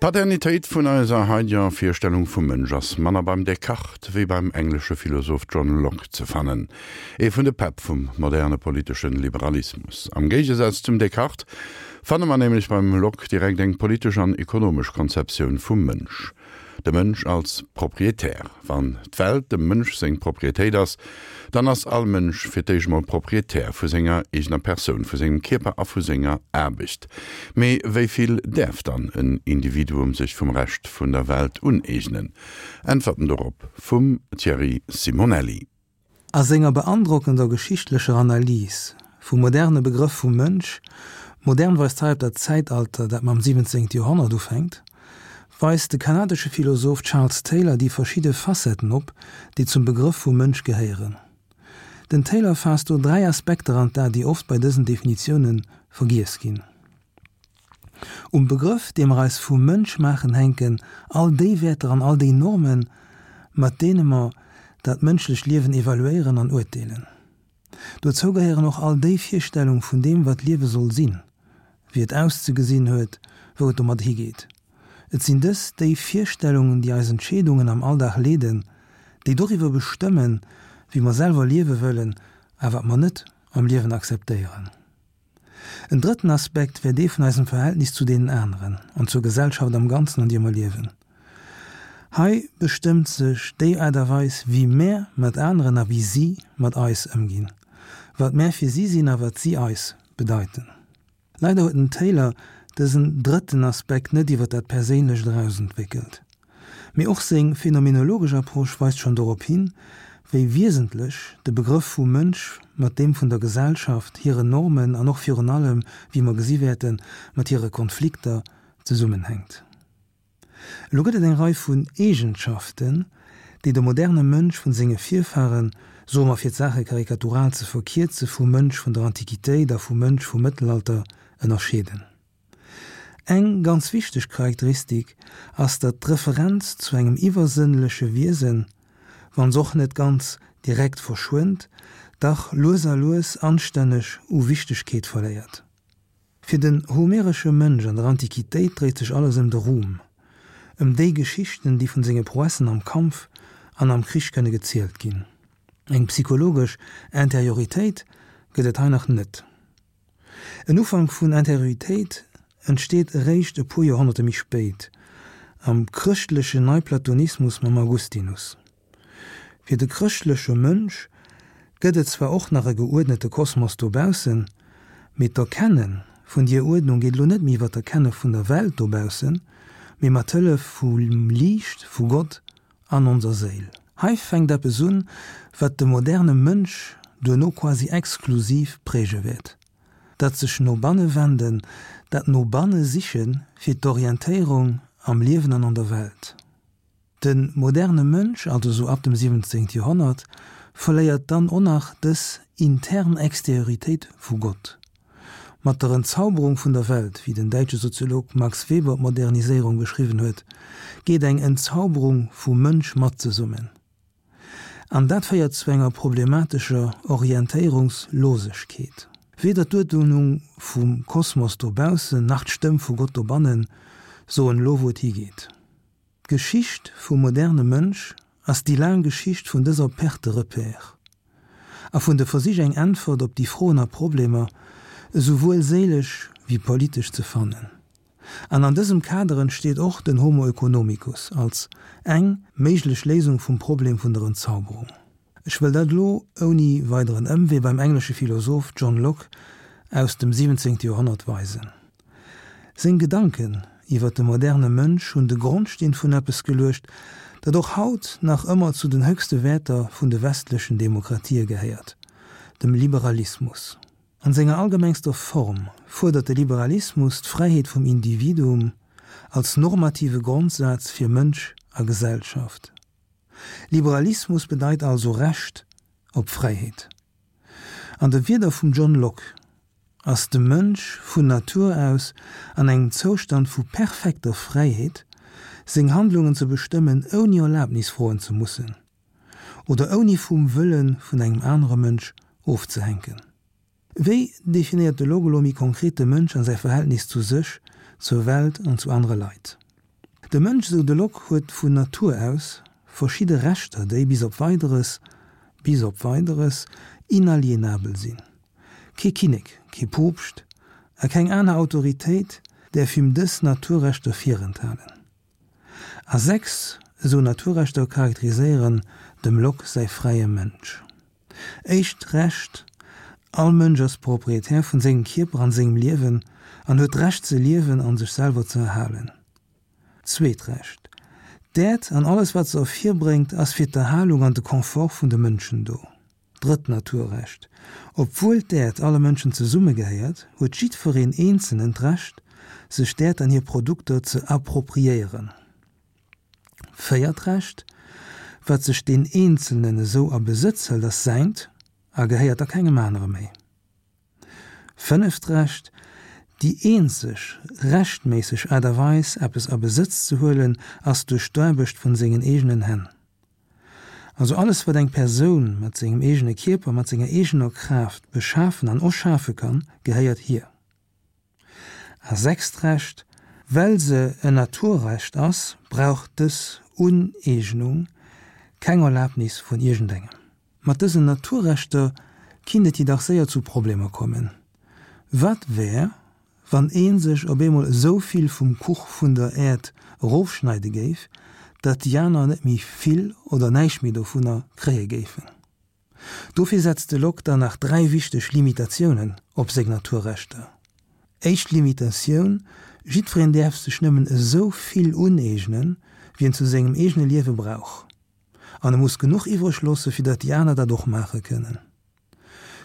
D'Paternitéit vun eiser haideger Virstellung vum Mënsch ass manner beim Descartes wéi beim englesche Philosoph John Locke ze fannen, ee vun de Päpp vum moderne politeschen Liberalismus. Am Géigesaz zum Descartes fanne mer nämlech beim Locke direkt eng politesch an ekonomesch Konzeptioun vum Mënsch. De Mënsch als Proprietär. Wann d'Welt dem Mënsch seng Proprietéit ass, dann ass all Mënsch fir d'éischt mol Proprietär vu senger eegener Persoun, vu sengem Kierper a vu senger Aarbecht. Mee wéi vill däerf dann en Individuum sech vum Rescht vun der Welt uneegnen? Äntwerten dorop vum Thierry Simonelli. A senger beandrockender geschichtlecher Analys vum moderne Begrëff vum Mënsch, modern weist hei op dat Zäitalter, dat mam 17. Joerhonnert ufänkt, weist de kanadesche Philosoph Charles Taylor déi verschidde Facetten op, déi zum Begrëff vum Mënsch gehéieren. Den Taylor faasst do 3 Aspekter an d'A, déi oft bei dësen Definitioune vergiess ginn. Um Begrëff, dee mer eis vum Mënsch maachen, hänken all déi Wäerter an all déi Normen, mat deene mer dat mënschlecht Liewen evaluéieren an urteelen. Dozou gehéieren och all déi Virstellung vun deem, wat Liewe soll sinn, wéi et auszegesinn huet, wou et domat higeet. Et sinn dës déi Virstellungen, déi eis Entscheedungen am Alldag leeden, déi doriwwer bestëmmen, wéi mer selwer liewe wëllen a wat mer net am Liewen akzeptéieren. En drëtten Aspekt wär dee vun eisem Verhältnis zu deenen aneren an zur Gesellschaft am Ganzen, an deer mer liewen. Hei bestëmmt sech déi Aart a Weis, wéi mär mat aneren a wéi si mat eis ëmginn, wat mär fir si sinn a wat si eis bedeiten. Leider huet den Taylor dësen drëtten Aspekt net iwwer dat Perséinlecht eraus entwéckelt. Mee och seng phänomenologesch Approche weist schonn dorop hin, wéi wiesentlech de Begrëff vum Mënsch mat deem vun der Gesellschaft, hiren Normen an och virun allem, wéi mer gesi wäerten, mat hire Konflikter zesummenhänkt. Elo gëtt et eng Rei vun Eegenschaften, déi de moderne Mënsch vun senge Virfaren, soe mer fir d'Saache karikatural ze verkierze, vum Mënsch vun der Antiquitéit a vum Mënsch vum Mëttelalter ënnerscheeden. Eng ganz wichteg Charakteristik ass, datt d'Referenz zu engem iwwersënnleche Wiesen, wann s'och net ganz direkt verschwënnt, dach lues a lues anstänneg u Wichtegkeet verléiert. Fir den homeresche Mënsch an der Antiquitéit dréit sech alles ëm de Ruhm, ëm déi Geschichten, déi vun senge Prouessen am Kampf an am Krich kënne gezielt ginn. Eng psychologesch Interioritéit gëtt et hei nach net. En Ufank vun Interioritéit entsteet eréischt e puer Joerhonnerte méi spéit, am chrëschtlechen Neiplatonismus mam Augustinus. Fir de chrëschtleche Mënsch gëtt et zwar och nach e geuerdnete Kosmos dobaussen, mee d'Erkenne vun dier Uerdnung geet elo net méi iwwer d'Erkenne vun der Welt dobaussen, mee mat Hëllef vum Liicht vu Gott an onser Séil. Hei fänkt eppes un, wat de moderne Mënsch duerno quasi exklusiv präge wäert, dat sech no banne wenden, dat no banne siche fir d'Orientéierung am Liewen an an der Welt. De moderne Mënsch, also sou ab dem 17. Joerhonnert, verléiert dann o nach dës intern Exterioritéit vu Gott. Mat der Entzauberung vun der Welt, wéi den däitsche Soziolog Max Weber d'Moderniséierung beschriwwen huet, geet eng Entzauberung vum Mënsch mat zesummen. An dat féiert zu enger problematescher Orientéierungslosegkeet. Weder d'Uerdnung vum Kosmos dobaussen nach d'Stëmm vu Gott dobannen soen elo wou et higeet. D'Geschicht vum moderne Mënsch ass déi laang Geschicht vun dëser Perte de repères a vun de Versich eng Äntwert op déi Froen a Problemer, esouwuel séilesch wéi politesch, ze fannen. An an dësem Kader entsteet och den Homo oeconomicus als eng méiglech Léisung vum Problem vun der Entzauberung. Ech wëll dat elo ouni weideren Ëmwee beim englesche Philosoph John Locke aus dem 17. Joerhonnert weisen. Seng Gedanken iwwer de moderne Mënsch hunn de Grondsteen vun eppes geluecht, dat och haut nach ëmmer zu den höchste Wäerter vun de westlechen Demokratië gehéiert, dem Liberalismus. An senger allgemengster Form fuerdert de Liberalismus d'Fräiheet vum Individuum als normative Grondsaz fir Mënsch a Gesellschaft. Liberalismus bedeit also Recht op Fräiheet. An de Wierder vum John Locke ass de Mënsch vun Natur aus an engem Zoustand vu perfekter Fräiheet, seng Handlungen ze bestëmmen ouni Erlabnis froen ze mussen oder ouni vum Wëlle vun engem anere Mënsch ofzehänken. Wéi definéiert de Locke elo méi konkret de Mënsch an säi Verhältnis zu sech, zur Welt an zu anere Leit? De Mënsch, esou de Locke, huet vun Natur aus verschidde Rechter, déi bis op Weideres, bis op Weideres, inalienabel sinn. Kee Kinnek, kee Poopscht a keng aner Autoritéit däerf him dës Naturrechter virenthalen. A 6 esou Naturrechter charakteriséieren dem Locke säi fräie Mënsch. Éischt Recht, All Mënsch ass Proprietär vun sengem Kierper an sengem Liewen an huet d'Recht ze liewen an sech selwer ze erhalen. Zweet Recht, D'Äerd an alles wat se ervirbréngt ass fir d'Erhalung an de Confort vun de Mënschen do. Drëtt Naturrecht, Obwuel d'Äerd alle Mënschen zesumme gehéiert, huet jiddwereen Eenzelnen d'Recht, sech d'Äerd an hir Produkter ze appropriéieren. Véiert Recht, Wat sech deen Eenzelnen esou a Besëtz hëlt, ass säint a gehéiert da kengem anere méi. Fënneft Recht, Déi eenzeg rechtméisseg Aart a Weis, eppes a Besëtz ze huelen, ass duerch d'Aarbecht vun sengen eegenen Hänn. Also alles wat eng Persoun mat sengem eegene Kierper, mat senger eegener Kraaft beschafen an erschafe kann, gehéiert hir. A sechst Recht, Well se en Naturrecht ass, brauch dës Uneegnung keng Erlabnis vun iergendengem. Mat dësen Naturrechter kinnt et jedoch séier zu Problemer kommen. Wat wär, Wann ee sech op eemol esou vill vum Kuch vun der Äerd erofschneide géif, datt déi aner net méi vill oder näischt méi dovunner kréie géifen. Dofir setzt de Locke dann nach 3 wichteg Limitatiounen op seng Naturrechter. Éischt Limitatioun, Jiddwereen däerf sech nëmmen esou vill uneegnen, wéi en zu sengem eegene Liewe brauch. An e muss genuch iwwreg loosse fir datt déi aner dat och maache kënnen.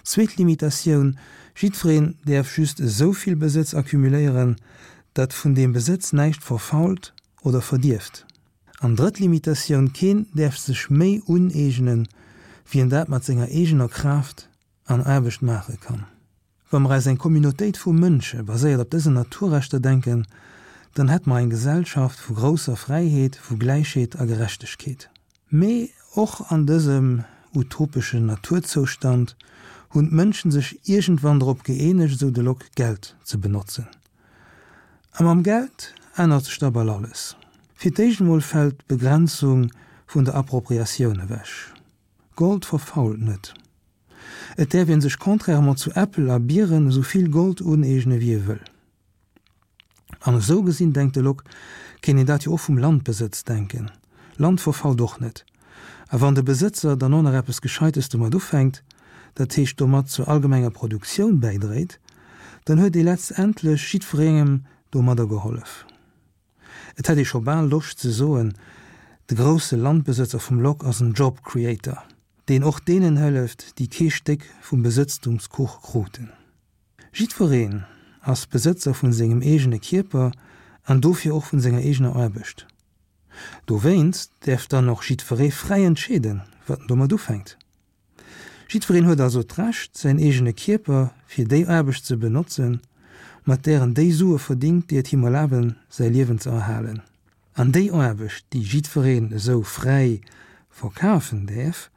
Zweet Limitatioun, Jiddwereen däerf just esou vill Besëtz accumuléieren, datt vun deem Besëtz näischt verfault oder verdierft. An drëtt Limitatioun, Keen däerf sech méi uneegnen, wéi en dat mat senger eegener Kraaft an Aarbecht maache kann. Wa mer eis eng Communautéit vu Mënsche baséiert op dësen Naturrechter denken, dann hätt mer eng Gesellschaft vu grousser Fräiheet, vu Gläichheet a Gerechtegkeet. Mee och an dësem utopeschen Naturzoustand hunn d'Mënschen sech iergendwann drop gëeenegt, esou de Locke, Geld ze benotzen. A mam Geld ännert sech da bal alles. Fir d'éischt emol fält d'Begrenzung vun der Appropriatioun ewech. Gold verfault net. Et däerf een sech contrairement zu Äppel a Bieren esou vill Gold uneegne wéi ee wëll. An esou gesinn, denkt de Locke, kéint een dat jo och vum Landbesëtz denken. Land verfault och net. A wann de Besëtzer dann och nach eppes Gescheites domat ufänkt, dat heescht domat zur allgemenger Produktioun bäidréit, dann huet ee letztendlech jiddwerengem domadder gehollef. Et hätt ee scho bal Loscht ze soen, de grousse Landbesëtzer vum Locke ass en Job Creator, deen och deenen hëlleft, déi kee Stéck vum Besëtztumskuch kruten. Jiddwereen ass Besëtzer vun sengem eegene Kierper an dofir och vun senger eegener Aarbecht. Dowéinst däerf dann och jiddweree fräi entscheeden, wat en domat ufänkt. Jiddwereen huet also d'Recht, säin eegene Kierper fir déi Aarbecht ze benotzen, mat där en déi Sue verdingt, déi et him erlaben, säi Liewen ze erhalen. An déi Aarbecht, déi jiddwereen esou fräi verkafen däerf,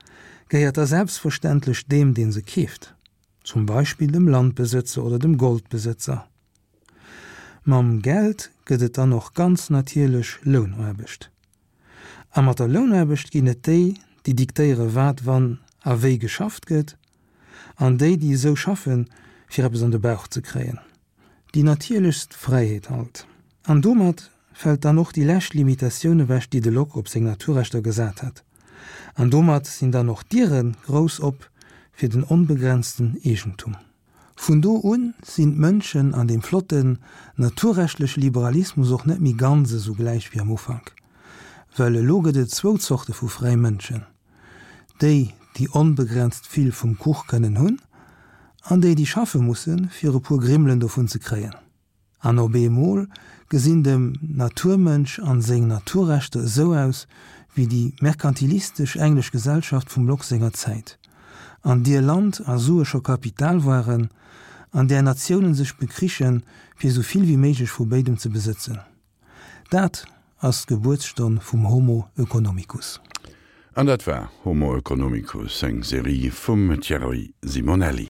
gehéiert da selbstverständlech deem, dee se keeft, zum Beispill dem Landbesëtzer oder dem Goldbesëtzer. Mam Geld gëtt et dann och ganz natierlech Lounaarbecht. A mat der Lounaarbecht ginn et déi, déi diktéiere wat, wann a wéi geschafft gëtt, an déi, déi esou schaffen, fir eppes an de Bauch ze kréien. Déi natierlechst Fräiheet halt. An domat fält dann och déi lescht Limitatioun ewech, déi de Locke op seng Naturrechter gesat hat. An domat sinn dann och d'Diere grouss op fir den onbegrenzten Eegentum. Vun do un sinn d'Mënschen an deem flotten naturrechtleche Liberalismus och net méi ganz esou gläich wéi am Ufank, well elo gëtt et zwou Zorte vu fräi Mënschen, déi, déi onbegrenzt vill vum Kuch kënnen hunn, an déi, déi schaffe mussen, fir e puer Grimmelen dovun ze kréien. An op eemol gesinn dem Naturmënsch an seng Naturrechter esou aus wéi déi merkantilistesch englesch Gesellschaft vum Locke senger Zäit, an dier Land a Sue scho Kapital waren, an där Natiounen sech bekrichen, fir esou vill wéi méiglech vu béidem ze besëtzen. Dat ass d'Gebuertsstonn vum Homo oeconomicus. An dat war Homo oeconomicus, eng Serie vum Thierry Simonelli.